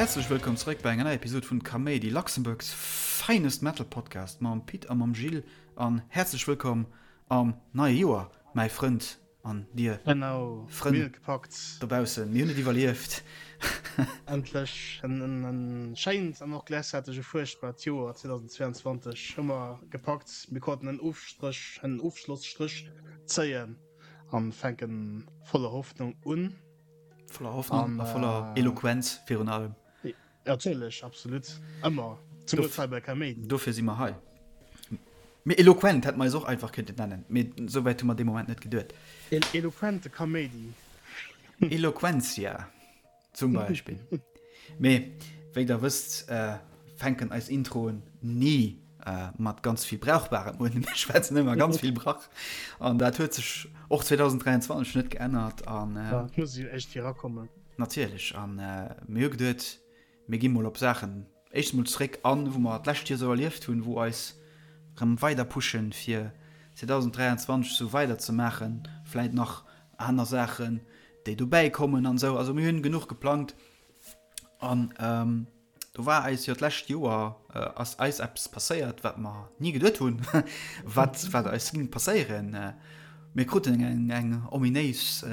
Häerzlech wëllkomm zeréck bei enger neier Episode vun Kaméidi, Luxembourg's finest Metal Podcast mam Pit a mam Gilles. An häerzlech wëllkomm am neie Joer, mäi Frënd an dir Genau, Frënn mir hunn et gepackt. dobaussen. Mir hunn et iwwerlieft. Endlech en schéint an och gläichzäiteg e fuerchtbart Joer 2022 hu mer gepackt. Mir konnten en Ofstréch, en Ofschlosstréch zéien an fänken voller Hoffnung un. Voller Hoffnung a voller Eloquenz virun allem. Natierlech, absolut, ëmmer, zemools hei bei Kaméidi. Dofir si mer hei. Mee eloquent hätte mer eis och einfach kënnten nennen, mee esou wäit hu mer dee Moment net geduet. Eloquente Kaméidi. Eloquentia zum Beispill. Mee wéi der wësst, fänken eis Introen ni mat ganz vill Brauchbarem un. Mir schwätzen ëmmer ganz vill Brach an dat huet sech och 2023 net geännert. An Et muss jo éischt erakommen. Natierlech. An mir hu geduet, mir gi mol op Saachen éischt emol zeréck an, wou mer d'lescht Joer esou erlieft hunn, wou eis erëm weider pushen, fir 2023 esou weider ze maachen. Vläit nach aner Saachen, déi dobäi kommen an esou. Also mir hunn genuch geplangt. An do war eis jo d'lescht Joer ass eis eppes passéiert, wat mer ni geduet hunn, wat wat eis géing passéieren. Mir kruten eng eng ominéis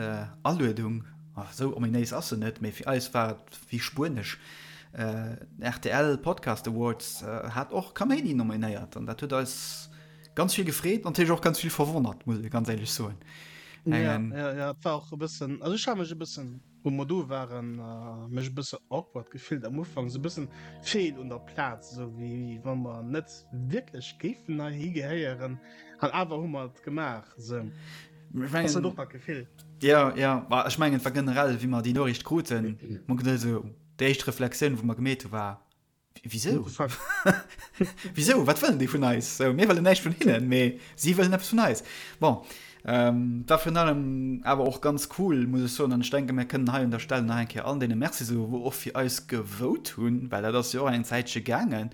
Aluedung, esou ominéis ass se net, mee fir eis war et wéi Spuenesch. Den rtl Podcast Awards hat och Kaméidi nominéiert an dat huet eis ganz vill gefreet, natierlech och ganz vill verwonnert, muss ee ganz éierlech soen. Jo, jo, jo, et war och e bëssen, also ech hat mech e bëssen Wou mer do waren, mech e bësse awkward gefillt am Ufank, esou e bëssen feel un der Plaz, esou wéi wa mer net wierklech géifen heihi gehéieren, an awer hu mer et gemaach esou. Ass dat och dat Gefill? Jo, jo, ma ech mengen et war generell, wéi mer déi Noriicht kruten, mer geduet esou, déi éischt Reflexioun wou mer gemeet hu war, Wisou? Wisou? Wat wëllen déi vun eis? So, mir wëllen näischt vun hinnen, mee si wëllen eppes vun eis. Bon, ähm, war virun allem awer och ganz cool, muss ech soen, an ech denke mir kënnen hei un der Stell nach eng Kéier allen deene Merci soen, wou och fir eis gevote hunn, well dat ass jo och eng Zäitche gaangen.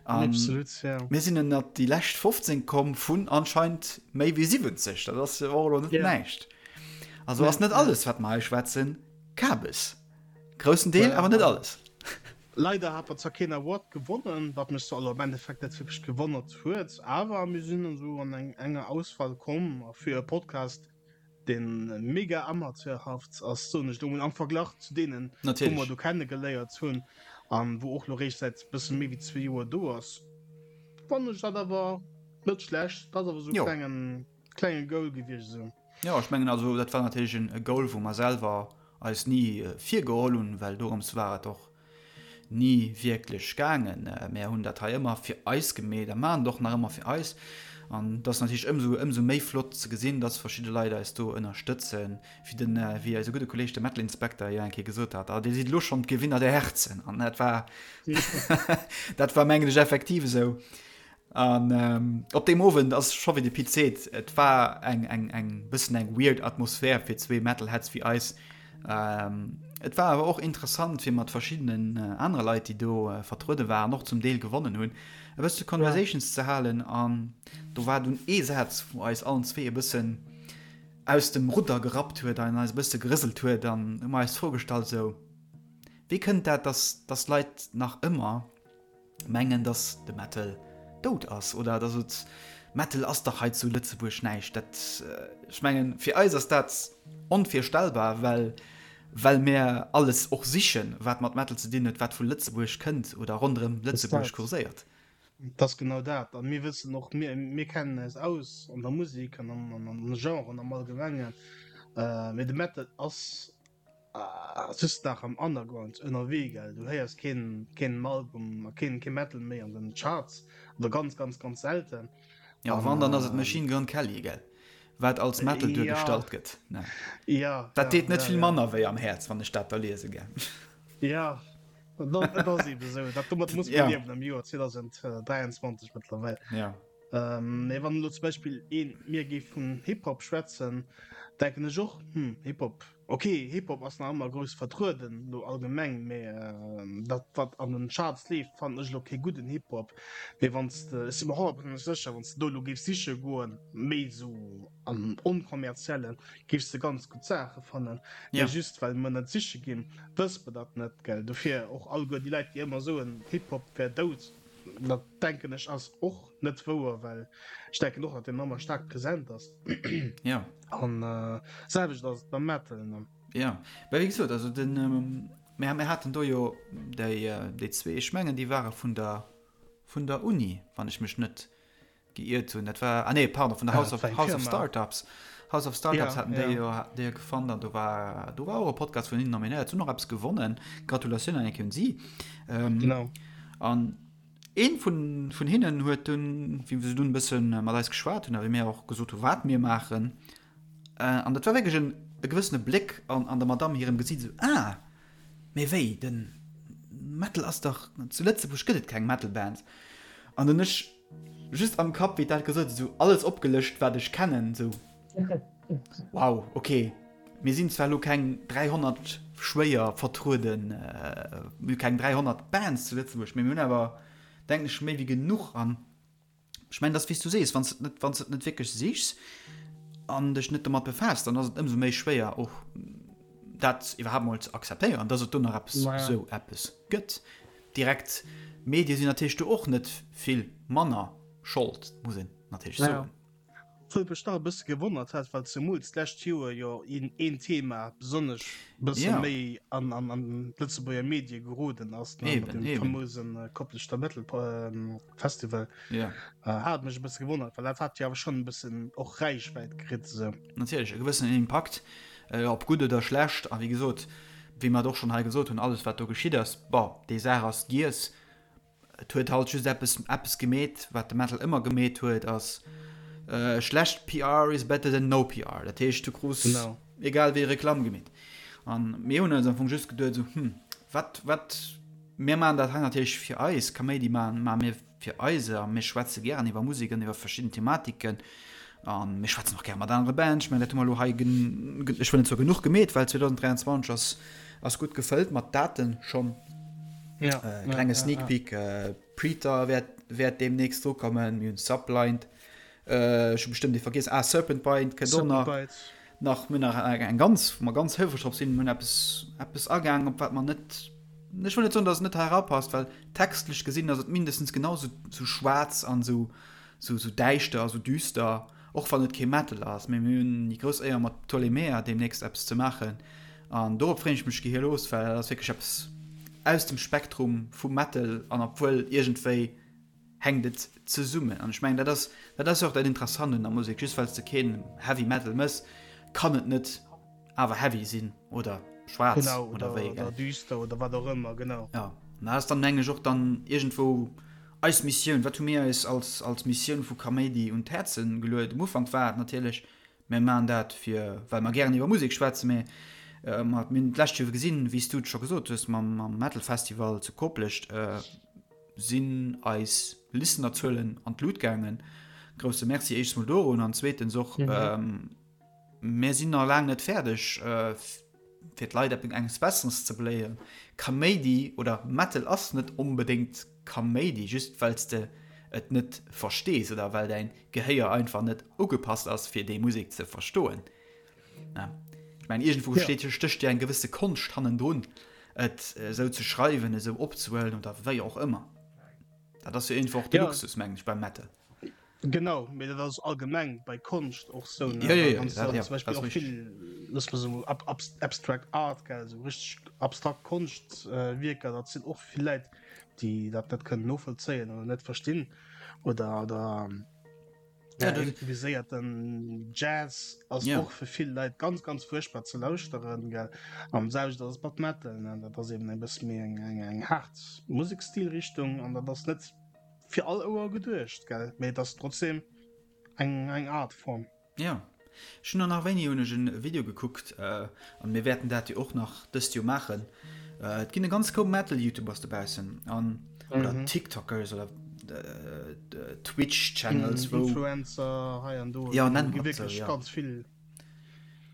An Absolut, ja. mir sinn ënnert déi lescht 15 komm vun anscheinend méi wéi 70. Dat ass jo och elo net Ja. näischt. Also Nee, ass net nee. alles, wat mer hei schwätzen, Kabes. Groussen Deel, Ja. awer net alles. Leider hat mer zwar keen Award gewonnen, wat mech zwar elo am Endeffekt net wierklech gewonnert huet, awer mir sinn esou an eng enger Auswahl komm a fir e Podcast deen mega amateurhaft ass, soen ech elo mol, am Verglach zu deenen wou mer Natierlech. do kenne geléiert hunn an wou och elo réischt säit bësse méi wéi zwee Joer do ass, fannen ech dat awer net schlecht. Dat ass awer esou e Jo. klengen klenge Goal gewiescht esou. Jo, ech mengen also dat war natierlech en e Goal wou mer selwer eis ni virgeholl hunn, well dorëms war et och ni wierklech gaangen. Mär hunn dat hei ëmmer fir eis gemeet a maachen et och nach ëmmer fir eis. An et ass natierlech ëmsou ëmsou méi flott ze gesinn, dass verschidde Leit eis do ënnerstëtzen, wéi den wéi eise gudde Kolleeg de Metal Inspector jo eng Kéier gesot hat, Ah, Dir sidd elo schonn d'Gewinner der Herzen. An dat war dat war mengen ech effektiv esou. An op deem Owend ass scho wéi de Pit seet, et war eng eng eng bëssen eng weird Atmosphär fir zwee Metalheads wéi eis. Et war awer och interessant fir mat verschiddenen anere Leit, déi do vertruede waren, och zum Deel gewonnen hunn, e bësse Conversations ze halen. An do war dunn ee Saz, wou eis allen zwee e bëssen aus dem Rudder gerappt huet an eis e bësse gerëselt huet. An hu mer eis d'Fro gestallt esou, Wéi kënnt dat, dass dass Leit nach ëmmer mengen dass de Metal dout ass oder dass et Metal ass dach hei zu Lëtzebuerg näischt. Dat ech mengen fir eis ass dat onvirstellbar, well well mär alles och sichen wat mat Metal ze dinn huet, wat vu Lëtzebuerg kënnt oder ronderëm Lëtzebuerg kurséiert. Et ass genau dat. A mir wëssen och, mir mir kennen eis aus an der Musek an an an de Genren am Allgemengen, mee de Metal ass Just nach am Underground ënnerwee gell, du héiers keen keen Album a keen keen Metal méi an den Charts oder ganz ganz ganz selten. Jo wann dann ass et Machine Gun Kelly gell, wat als Metal duergestallt gëtt ne? Ja Dat deet net vill manner wéi am Häerz wann ech dat da liese gell. Ja dat ass eben esou, dat domat muss man liewen am Joer 2023 mëttlerweil. Ja. Mee wann elo zum Beispill een mir géif vun Hip-Hop schwätzen, denken ech och, hm, Hip-Hop. Ok, Hip-Hop ass nach ëmmer grouss vertrueden, lo allgemeng, mee dat wat an den Charts leeft fannen ech lo kee gudden Hip-Hop. Mee wann s de, ech si mer honnertprozenteg sécher, wann s de do lo géifs siche goen, méi esou am onkommerziellen, géifs de ganz gutt Saache fannen. Mee just well mer net siche ginn, wësse mer dat net, gell. Dofir och alleguer déi Leit déi ëmmer soen, Hip-Hop wär dout, dat denken ech ass och net wouer, well ech denken och, datt deen ëmmer staark present ass. Ja. An äh, selwecht ass et beim Metal. Ne? Ja, well wéi gesot, also den, ähm, mir, mir haten do jo déi, äh, déi zwee, ech mengen déi ware vun der, vun der Uni, wann ech mech net geiert hunn. Dat war, ah nee, pardon, vun der House of, House of Startups. House of Startups ja, haten déi jo, ja. déi jo gefonnt an do war, do war och e Podcast vun hinnen nominéiert, hunn och eppes gewonnen. Gratulatioun an eng Kéier un si. Ähm, genau. An Een vun vun hinnen huet dunn, wéi se dunn e bësse mat eis geschwat hunn a wéi mir och gesot hu wat mir maachen, an dat war wierklech en e gewëssene Bléck an an der Madamm hirem Gesiit, esou, Ah, mee wéi, de Metal ass dach, zu Lëtzebuerg gëtt et keng Metal-Band. An dunn ech just am Kapp, wéi dat gesot huet, esou alles opgelëscht, wat ech kennen, esou, Wow, ok, mir sinn zwar elo keng 300 schwéier vertrueden, mir hu keng 300 Bands zu Lëtzebuerg, mee mir hunn awer, denken ech, méi wéi genuch. An ech mengen, dat ass wéi s du sees, wann s de et net, wann s de et net wierklech sichs an dech net domat befaasst, dann ass et ëmsou méi schwéier och dat iwwerhaapt mol ze akzeptéieren, dass et do nach eppes, esou eppes gëtt. Direkt Medie sinn natierlech do och net vill manner Schold, muss een natierlech soen. Wou et mech nach e bësse gewonnert hat, well zemools d'lescht Joer jo een een Thema besonnesch bësse Ja. méi an an an d'Lëtzebuerger Medie geroden ass, ne, mat Eben, dem eben. famousen Kopleschter Metal Festival, Ja. hat et mech e bësse gewonnert, well dat hat jo awer schonn e bëssen och Räichwäit kritt esou. Natierlech, e gewëssenen Impakt, ob gutt oder schlecht. A wéi gesot, wéi mer et och schonn hei gesot hunn, alles wat do geschitt ass, bon, déi Saach ass giess. Et huet halt just eppes eppes gemeet, wat de Metal ëmmer gemeet huet, ass schlecht PR is better than no PR. Dat heescht, du krus Genau. egal wéi Reklamm gemeet. An mir hunn eis am Fong just geduet esou, hm, wat wat mir maachen dat hei natierlech fir eis, Kaméidi maachen maache mir fir eis a mir schwätze gären iwwer Musek an iwwer verschidden Thematiken a mir schwätzen och gäre mat anere Bands. Ech mengen, dat hu mer elo hei gen ech wëll net soe genuch gemeet, well 2023 ass Ass gutt gefëllt mat Daten schonn. Ja, äh, klenge ja, Sneak ja, Peek, äh, Preter wäert, wäert demnächst dru kommen, mir hunn Sublind, äh, ech hu bestëmmt ee vergiess, ah, Serpent Bind kënnt och nach. Bites. Nach mir nach eng ganz, wou mer ganz houfreg drop sinn, mir hunn eppes, eppes agaang, op wat mer net, ech wëll net soen, datt et net hei erapasst, well textlech gesinn ass et mindestens genau sou, sou schwaarz an sou, sou, sou däischter a sou düster. Och wann et kee Metal ass, mee mir hunn déi grouss Éier mat Ptolemea deemnächst eppes ze maachen an dorop freen ech mech gehirlos, well dat ass wierklech eppes aus dem Spektrum vum Metal an obwuel iergendwéi hänkt et zesummen an ech mengen dat ass dat ass jo och dat Interessant un der Musek, just well s de keen Heavy Metal mëss, kann et net awer heavy sinn oder schwaarz Genau, oder oder, wéi, oder gell? düster oder wat och ëmmer, genau. Jo, an dat ass dann mengen ech och dann iergendwou Eis Missioun, wat hu mir eis als als Missioun vu Kaméidi un d'Häerze geluet? Um Ufank war et natierlech, mir maachen dat fir well mer gären iwwer Musek schwätzen, mä mir hunn d'lescht Joer gesinn, wéi s du et scho gesot hues, mam mam Metal Festival zu Koplescht sinn eis Listenerzuelen an d'Lut gaangen. Grousse Merci éischts mol dorun an zweetens och, mir sinn nach laang net fäerdeg, fir d'Leit eppes Besseres ze beléieren. Kaméidi oder Metal ass net onbedéngt Kaméidi, just well s de et net verstees oder well däin Gehéier einfach net ugepasst ass fir déi Musek ze verstoen. Ech mengen iergendwou steet stécht jo eng gewësse Konscht hannendrun et esou ze schreiwen, esou opzehuelen oder wéi och ëmmer. Dat ass jo iergendwou och de Luxus mengen ech beim Metal. Genau, mee dat ass allgemeng bei Konscht och sou, ne? Ja, ja, ja, Wann s dat, du ja, zum Beispill dat och ass richtig. vill, looss mer soen, ab, ab, abstract art, gell, esou richteg abstrakt Konschtwierker, dat sinn och vill Leit, déi dat net kënnen novollzéien oder net verstinn oder, oder Ja, ja, dat, improviséierten Jazz ass ja. och fir vill Leit ganz, ganz fuerchtbar ze lauschteren, gell. An selwecht ass et mat Metal, ne, dat ass eben e bësse méi eng, eng, eng haart Musekstilrichtung an dat ass net Fir all Ouer geduecht, gell? Mee et ass trotzdem eng eng Artform. Jo, ech hunn och nach wéini hunn ech en Video gekuckt, an mir wäerten dat jo och nach dëst Joer maachen, et ginn e ganz Koup Metal Youtubers dobaussen an oder Tiktokers oder Twitch Channels wou Influencer hei an do, jo nennt gi mer et sou wierklech jo. ganz vill.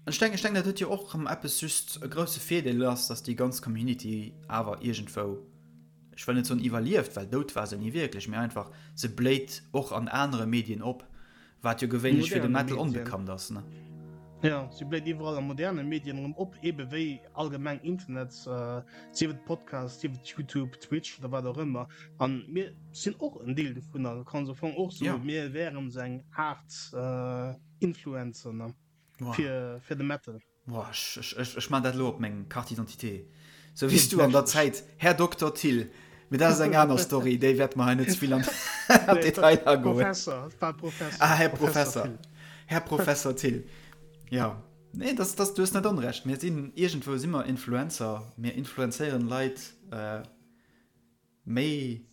Ech denken, ech denken, dat huet jo och erëm eppes just e grousse Virdeel ass, datt déi ganz Community awer iergendwou, ech wëll net soen iwwerlieft, well dout war se ni wierklech, mee einfach se bléit och an anere Medien op, wat jo gewéinlech fir de Metal onbekannt ass, ne? Jo, se bléit iwwerall a moderne Medien erëm op, ebe wéi allgemeng Internet, sief et Podcast, sief et YouTube, Twitch oder wat och ëmmer. An mir sinn och en Deel dovunner, du kanns am Fong och soen, mir wären esou eng Aart Influencer, ne? Wow. Fir, fir de Metal. Boah, ech, ech, ech, ech man dat lo op meng Carte d'identité. Sou wéi s du an der Zäit, Här Dokter Thill. Mee dat ass eng aner Story, déi wäerte mer hei net ze vill an an d'Detailer agoen. Professor, et war Professor. Ah, Här Professor. Thill. Här Professor Thill. Ja. Nee, das, das, du hues net onrecht. Mir sinn, iergendwou si mer Influencer. Mir influenzéieren Leit, äh, méi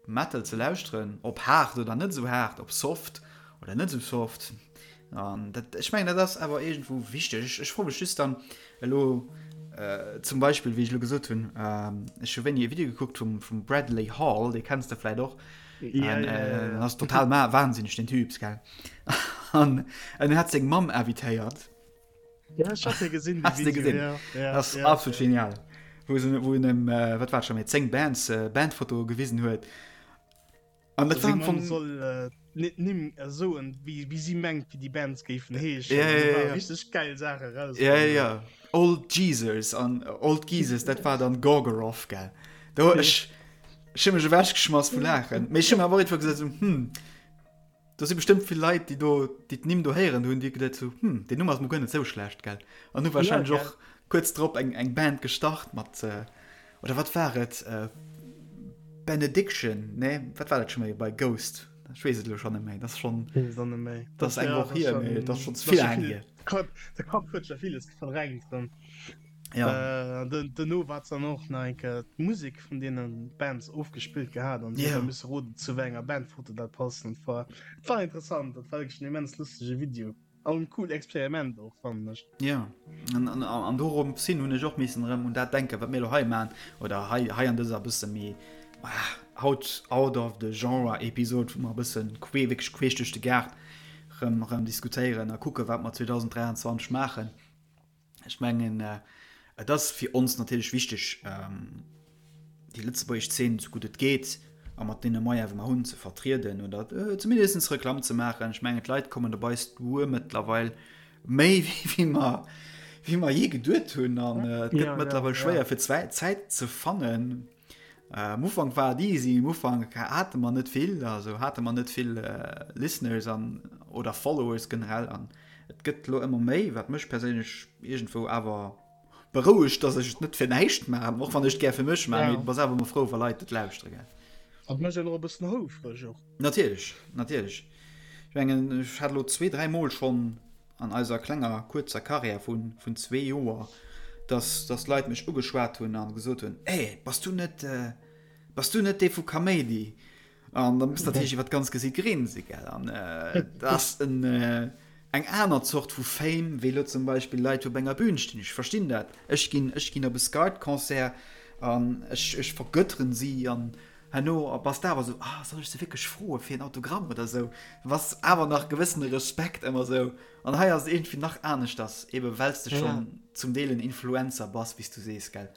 Metal ze lauschteren, ob haart oder net esou haart, ob soft oder net esou soft. An dat, ech mengen, dat ass awer iergendwou wichteg. Ech, ech froe mech just dann elo äh, zum Beispill, wéi ech elo gesot hunn, äh, ech hu wéini e Video gekuckt vum, vum Bradley Hall, dee kenns de vläit och. Ja, An, ja, ja, äh, ja. ass total ma wahnsinneg, den Typ, gell. An en hat seng Mamm invitéiert. Ja, ich hab den gesehen, Hast du gesehen? Ja, ja, das ist ja, absolut ja. genial. Wo, se, wo en em, äh, wat war schon méi 10 Bands äh, Bandfoto gewisen huet. An dat war am Fong soll äh, net nimm so en wie, wie sie mengt wie die Bands géifen heeschen. Ja, ja, ja, ja. Richtig geil Sache raus. Ja, ja, ja. Old Jesus an äh, Old Jesus, dat war dann Gorgoroth, gell. Do ech ech hu mech ewechgeschmass vu Laachen. Mee ech hu mir awer och irgendwou gesot, so, hm, Do si bestëmmt vill Leit, déi do, déi d'Nimm do héieren hunn, déi geduet hu, hm, deen Numm ass mol guer net esou schlecht, gell? An hu warscheinlech och kuerz drop eng, eng Band gestart mat, oder wat war et, Benediction, nee, wat war dat scho méi bei Ghost? Ech weess et elo schonn net méi, dat ass schonn, dat ass eng Woch hier, mee dat ass schonn ze vill laang hier. De Kapp huet scho villes verdrängt erëm. Ja. Äh, duerno war dann och nach eng Kéier d'Musek vun deene Bands ofgespillt gehat an yeah. misse roden zu wéi enger Bandfoto dat passt. Und war, war interessant, dat war wierklech en immens lustege Video. An en cool Experiment och fannen ech. Ja an, an, an dorum sinn hunn ech och missen erëm un dat denken, wat mir lo hei man oder hei, hei an dëser bësse méi ah, out, out of the genre Episode, wou mer e bëssen quee, wierklech queesch duerch de Gaart rëm, rëm diskutéieren a kucke wat mer 2023 maachen. Ech mengen, et ass fir ons natierlech wichteg, déi lëtzebuergesch Zeen, esou gutt et geet a mat deene Moyene wou mer hunn, ze vertrieden oder zumindest Reklamm ze maachen. Ech mengen, d'Leit kommen op eis duer mëttlerweil méi wéi mer, wéi mer jee geduet hunn an et gëtt mëttlerweil schwéier fir Zäit ze fannen. Am Ufank war et easy, am Ufank hate mer net vill, also hate mer net vill Listeners an oder Followers generell an et gëtt elo ëmmer méi, wat mech perséinlech iergendwou awer berouegt, dass ech et net fir näischt maachen, och wann ech et gär fir mech maachen, mee du bass awer ëmmer frou, wa Leit et lauschtere, gell. An mécht een och e bëssen houfreg och. Natierlech, natierlech. Ech mengen, ech hat elo zwee, dräi Mol schonn an eiser klenger kuerzer Karriär vun vun zwee Joer, dass dass Leit mech ugeschwat hunn an gesot hunn, Hey, bass du net bass du net dee vu Kaméidi? An da muss natierlech iwwer d'ganz Gesiit grinse gell. An dat ass en eng aner Zort vu Fame wéi elo zum Beispill Leit wou op enger Bühn stinn. Ech verstinn dat. Ech ginn ech ginn op e Skart-Concert an ech ech vergötteren si an Herno bass de awer esou, ah, soll ech se wierklech froe fir en Autogramm oder esou? Bass awer nach gewëssene Respekt ëmmer esou. An hei ass et iergendwéi nach aneschters, ebe well s de schonn zum Deel en Influencer bass, wéi s du sees, gell?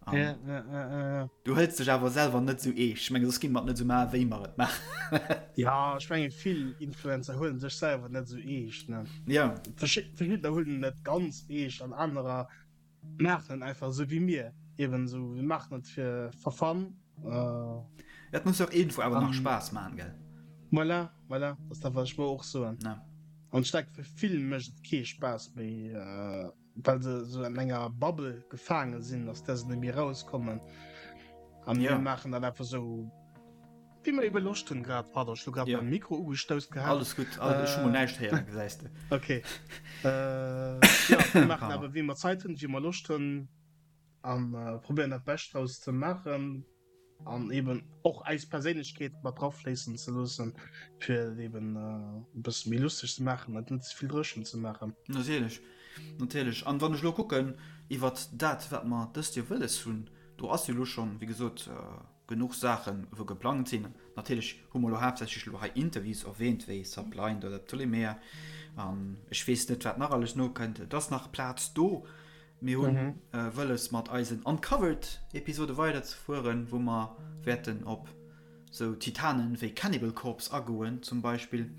An du hëls dech awer selwer net esou eescht. Ech menge soss géinge mer et net esou maachen, wéi mer et maachen. Jo, ech menge vill Influencer huelen sech selwer net esou eescht, ne? Jo. Verschiddener huelen et ganz eescht an anerer Maachen einfach esou wéi mir eben esou, mir maachen et fir for fun. Et muss jo och iergendwou awer nach Spaass maachen, gell? Voilà, voilà, dat ass dat wat ech wëll och soen. An ech denken fir vill mécht et kee Spaass méi, well se esou an enger Bubble gefaange sinn, aus där se net méi erauskommen. A mir maachen dat einfach esou. Wéi mer ebe Loscht hunn grad. Pardon, ech hu grad Ja. mäi Mikro ugestouss gehat. Alles gutt, alles, ech hu mol näischt héieren, gesäis de. Okay. Äh, ja, mir maachen awer wéi mer Zäit hunn, wéi mer Loscht hunn an äh, probéieren dat Bescht draus ze maachen an eben och eis Perséinlechkeet mat drafléissen ze loossen, fir et eben äh, e bësse méi lusteg ze maachen, et net ze vill dréchen ze maachen. Natierlech, natierlech. An wann ech elo kucken iwwert dat, wat mer dëst Joer wëlles hunn, do ass jo elo schonn, wéi gesot, äh. Genuch Saachen, wou geplangt sinn. Natierlech hu mer elo haaptsächlech elo hei Interviews erwähnt, wéi Sublind oder Ptolemea. An ech weess net, wat nach alles nokënnt. Et ass nach Plaz do. Mir hu wëlles, mat eisen Uncovered-Episode weiderzefueren, wou mer wäerten op sou Titanen wéi Cannibal Corpse agoen zum Beispill.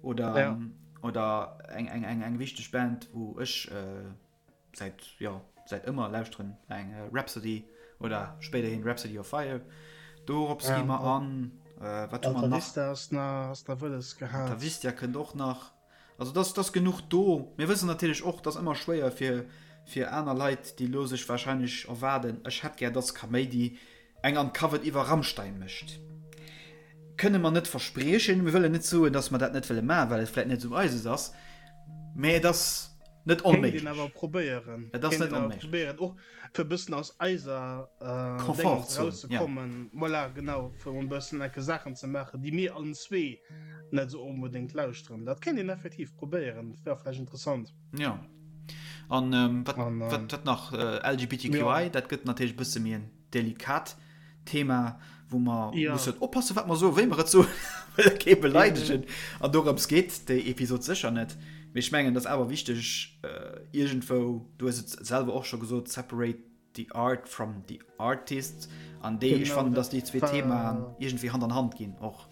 Oder, oder eng, eng, eng, eng wichteg Band, wou ech. Säit, jo, säit ëmmer lauschteren eng Rhapsody oder spéiderhin Rhapsody of Fire. Dorops gi mer an. Wat hu mer nach? Alta Vista ass nach wëlles gehat. Alta Vista kënnt och nach. Also dass dass genuch do. Mir wëssen natierlech och, dass ëmmer schwéier fir fir aner Leit, déi elo sech warscheinlech erwaarden, ech hätt gär, dass Kaméidi eng Uncovered iwwer Rammstein mécht. Kënne mer net verspriechen. Mir wëllen net soen, dass mer dat net wëlle maachen, well et vläit net esou eises ass, mä et ass net Kéint een awer onméiglech. probéieren. Et ass Kéint net een awer onméiglech. probéieren, och fir e bëssen aus eiser Déngens Komfortzon, ja. erauszekommen. Voilà, genau, fir emol e bëssen enke Saachen ze maachen, déi mir allen zwee net esou onbedéngt lauschteren. Dat kéint een effektiv probéieren, dat wär vläicht interessant. Jo. An wat, An, wat, wat nach? LGBTQI, jo. dat gëtt natierlech e bësse méi en delikat Thema, wou mer ja. mussen oppassen, wat mer soen, wéi mer et soen, wëlle kee beleidegen. An dorëms geet déi Episod sécher net. Mee ech mengen, dat ass awer wichteg äh, iergendwou, du hues et selwer och scho gesot, separate the art from the artist. An déi, ech fannen, dass déi zwee Themaen iergendwéi Hand an Hand ginn och.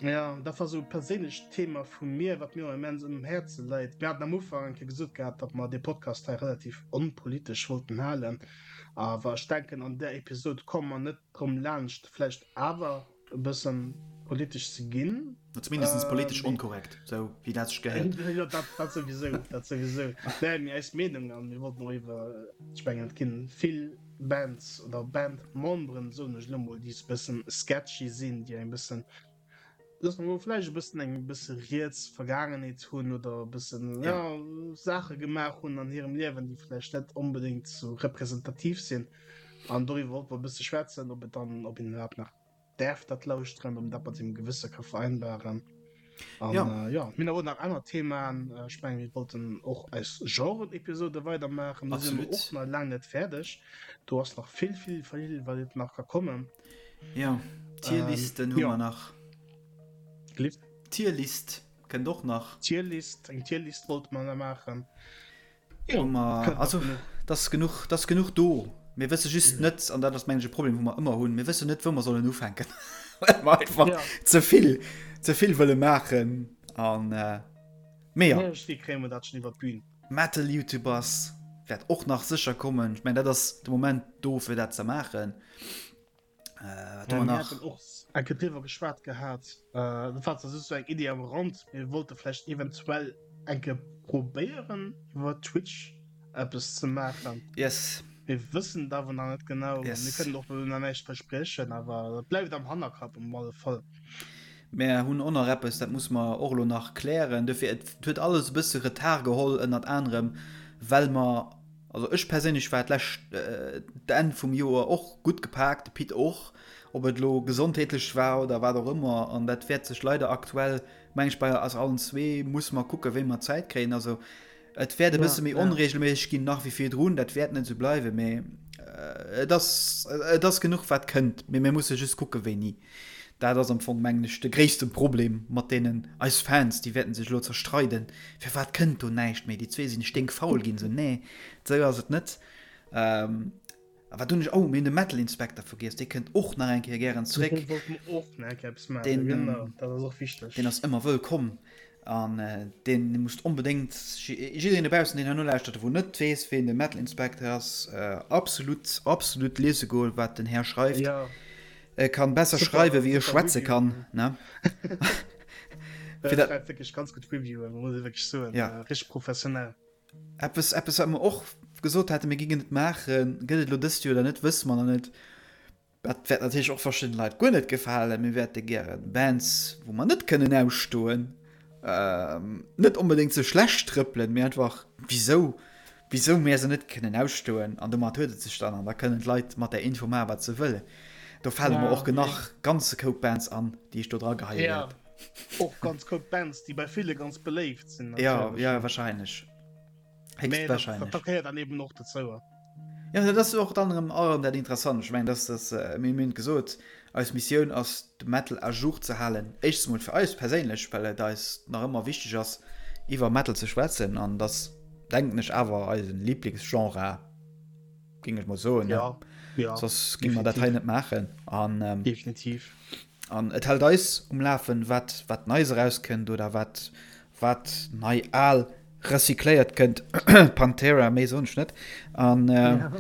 Ja, dat war sou e perséinlecht Thema vu mir, wat mir och immens um Häerze läit. Mir haten am Ufank eng Kéier gesot gehat, datt mer dee Podcast hei relativ onpolitesch wollten halen. Awer ech denken, an där Episod komme mer net drëm laanscht, vläicht awer e bësse politesch ze ginn. Zumindest politesch onkorrekt, sou wéi dat sech gehéiert. Jo, dat, dat souwisou, dat souwisou. Nee, mee eis Meenung, a mir wollten och iwwer, ech mengen, et ginn vill Bands oder Bandmemberen, soen ech elo mol, déi e bëssen sketchy sinn, déi eng bëssen, loosse mer mol vläicht e bëssen eng bësse riets Vergaangenheet hunn oder e bëssen, ja, Saache gemaach hunn an hirem Liewen, déi vläicht net onbedéngt sou representativ sinn. An doriwwer wollte mer e bësse schwätzen, ob et dann, ob een iwwerhaapt nach däerf dat lauschteren, ob een dat mat sengem Gewësse ka vereinbaren. An Ja. äh, ja, mir hunn awer och nach aner Themaen. Äh, Ech mengen, mir wollten och eis Genre-Episode weidermaachen. Do si mer Absolut. och nach laang net fäerdeg. Do ass nach vill, vill, vill, wat et nach ka kommen. Ja, Ähm, Tierlisten hu ja. mer nach. Gelift? Tierlist kënnt och nach. Tierlist, eng Tierlist wollte mer nach maachen. Jo, ma also dass genuch, dass genuch do. Mir wësse just net, an dat ass mengen ech e Problem, wou mer ëmmer hunn, mir wëssen net, wou mer sollen ufänken, well mer einfach ja. ze vill, ze vill wëlle maachen. An äh, mee ja. Irgendwie kréie mer dat schon iwwer d'Bühn. Metal YouTubers wäert och nach sécher kommen. Ech mengen, dat ass de Moment do, fir dat ze maachen. Äh, wat hu mer nach? Mir haten och eng Kéier driwwer geschwat gehat. Äh, dat war zwar just sou eng Iddi am Rand. Mir wollte vläicht eventuell eng Kéier probéieren, iwwer Twitch eppes ze maachen. Yes. Mir wëssen et awer nach net genau. Yes. Mir kënnen och nach näischt verspriechen, awer dat bleift am Hannerkapp um alle Fall. Mär hunn och nach eppes, dat muss mer och elo nach klären. Dofir, et huet alles e bësse Retard geholl, ënnert anerem, well mer Also ech perséinlech war d'lescht d'Enn vum Joer och gutt gepaakt, de Pit och, ob et elo gesondheetlech war oder wat och ëmmer. An dat wäert sech leider aktuell, meng ech, bei eis allen zwee musse mer kucken, wéi mer Zäit kréien. Also et wäert e bësse méi onreegelméisseg ginn nach wéi virdrun, dat wäert net esou bleiwen, mee et ass et ass genuch wat kënnt, mee mir musse just kucke wéini. Dat ass am Fong, mengen ech, de gréisste Problem mat deenen, eis Fans, déi wäerten sech elo zerstreiden, firwat kënnt do näischt méi, déi zwee sinn sténkfaul ginn. Sou, nee, sou ass et net. A wat hunn ech, oh, mir hunn de Metal Inspector vergiess, dee kënnt och nach eng Kéier gären zréck. Dee wollte mer och nach eng Kéier eppes maachen, Deen, genau, dat ass och wichteg. Deen ass ëmmer wëllkomm an deen musst onbedéngt, jiddereen dobaussen, deen hei nolauschtert, wou net weess, ween de Metal Inspector ass, absolut, absolut liese goen, wat den Här schreift. Jo. E kann besser Super, schreiwen, wéi e super schwätze Review. kann, ne? Fir Fir dat- schreift wirklich ganz gut Reviewen, muss ich wirklich soen. Ja. Äh, richtig professionell. Eppes, eppes, wat mer och gesot haten, mir gingen et maachen, gëtt et elo dëst Joer oder net, wësse mer nach net. Dat wäert natierlech och verschiddene Leit guer net gefalen. Mir wäerte gären Bands, wou mer net kënnen ausstoen, net onbedéngt ze schlecht trëppelen, mee einfach wisou, wisou mär se net kënnen ausstoen. An domat huet et sech dann, an da kënnen d'Leit mat där Info maachen, wat se wëllen. Do fale mer Ja, och genach ganze Koup Bands an, déi ech do dra geheie Ja, wäert. och ganz Koup Bands, déi bei ville ganz beléift sinn Ja, natierlech. ja, wahrscheinlech. Mee dat, Héchstwahrscheinlech. dat gehéiert dann eben och dozou. Ja, dat ass och dann erëm erëm dat Interessant. Ech mengen, dass das, äh, mir hunn gesot, eis Missioun ass, de Metal à jour ze halen. Éischtens mol fir eis perséinlech, well et eis nach ëmmer wichteg ass, iwwer Metal ze schwätzen. An dass, denken ech, awer eisen Lieblingsgenre, géing ech mol soen. Ja, ja. Soss géinge mer dat hei net maachen. An, ähm, Definitiv. An et hält eis um Lafen, wat, wat Neies erauskënnt oder wat, wat nei al recycléiert kënnt. Pantera, méi soen ech net. An, ähm, ja.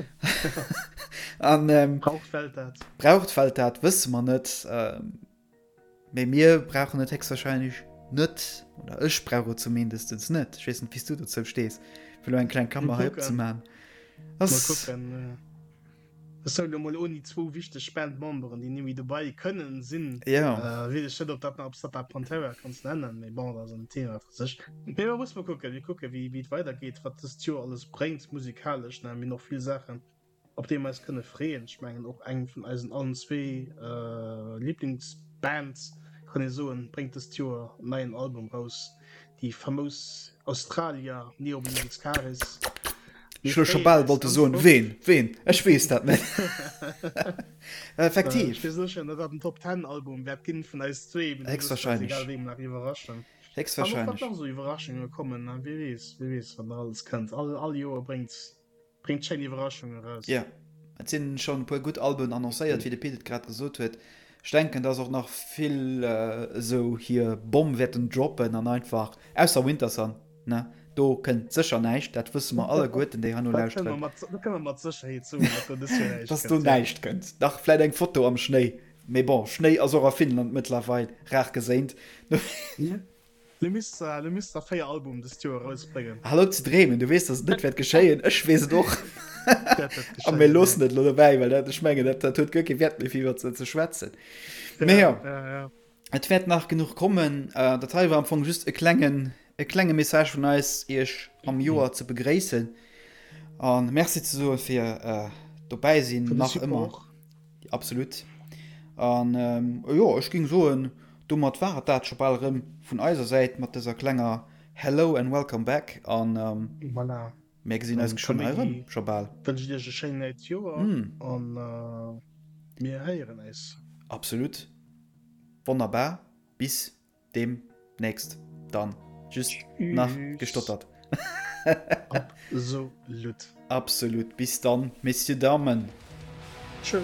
an ähm, braucht Welt dat? Braucht Welt dat, wësse mer net. Ähm, mee mir brauchen et héchstwahrscheinlech net. Oder ech brauch et zumindest net. Ech weess net, wéi s du dozou stees, fir lo eng kleng Kammer hei opzemaachen. Mal kucken. Ech soen elo mol ouni zwou wichteg Bandmemberen, déi nemmi dobei kënnen sinn, weess ech net, ob dat nach, ob s dat da Pantera kanns nennen, mee bon, dat ass en Thema fir sech. Mee mer musse mol kucken, mir kucke wéi wéi et weidergeet, wat dëst Joer alles bréngt musikalesch, ne, mir hunn och vill Saachen, op déi mer eis kënne freeën. Ech mengen och eng vun eisen allen zwee Liblingsbands, kann ee soen, bréngt dëst Joer en neien Album raus. Déi famous Australier Neobliviscaris. Ech hu scho bal wollte soen, ween, ween, ech weess dat net. Effektiv. Ech weess sécher net, wat den Top Ten Album wäert ginn vun eis zwee. Héchstwahrscheinlech. Egal wéi nach iwwerraschen. Héchstwahrscheinlech. An och wat nach esou Iwwerraschunge kommen, wie weess, wie weess wat nach alles kënnt. All, all Joer bréngt Bréngt schéin Iwwerraschungen eraus. Jo, et sinn schonn e puer gutt Alben annoncéiert, wéi de Pit et grad gesot huet. Ech denken, dass och nach vill esou hir Bomm wäerten droppen an einfach, ausser Wintersun, ne, do kënnt sécher näischt, dat wësse mer alleguerten, déi hei no lauschteren. Dat kënne mer mat Sécherheet soen, datt do dës Joer näischt kënnt. Dass do näischt kënnt. Dach, vläit eng Foto am Schnéi, mee bon, Schnéi ass och a Finnland mëttlerweil rar geséint. Lo misst lo misst der 4 Album dëst Joer erausbréngen. Hal op ze dreemen, du weess dass et net wäert geschéien, ech weess et och. A mir loossen et elo dobäi, well dat, ech mengen, dat, dat huet guer kee Wäert méi fir iwwer ze schwätzen. Mee jo, et wäert nach genuch kommen. Dat hei war am Fong just e klengen, e klenge Message vun eis, iech am Joer ze begréissen a Merci ze soe fir dobäi sinn, nach ëmmer. Absolut. An jo, ech géing soen, Domat war et dat scho bal erëm vun eiser Säit mat dëser klenger Hello and Welcome Back an Voilà. mär gesinn eis geschwënn hei erëm, scho bal. Wënschen iech e schéint neit Joer an mir héieren eis. Absolut. Wonnerbar. Bis deemnächst dann. Just nach gestottert. Absolut. Absolut. Bis dann, Messieurs, Damen. Tschö.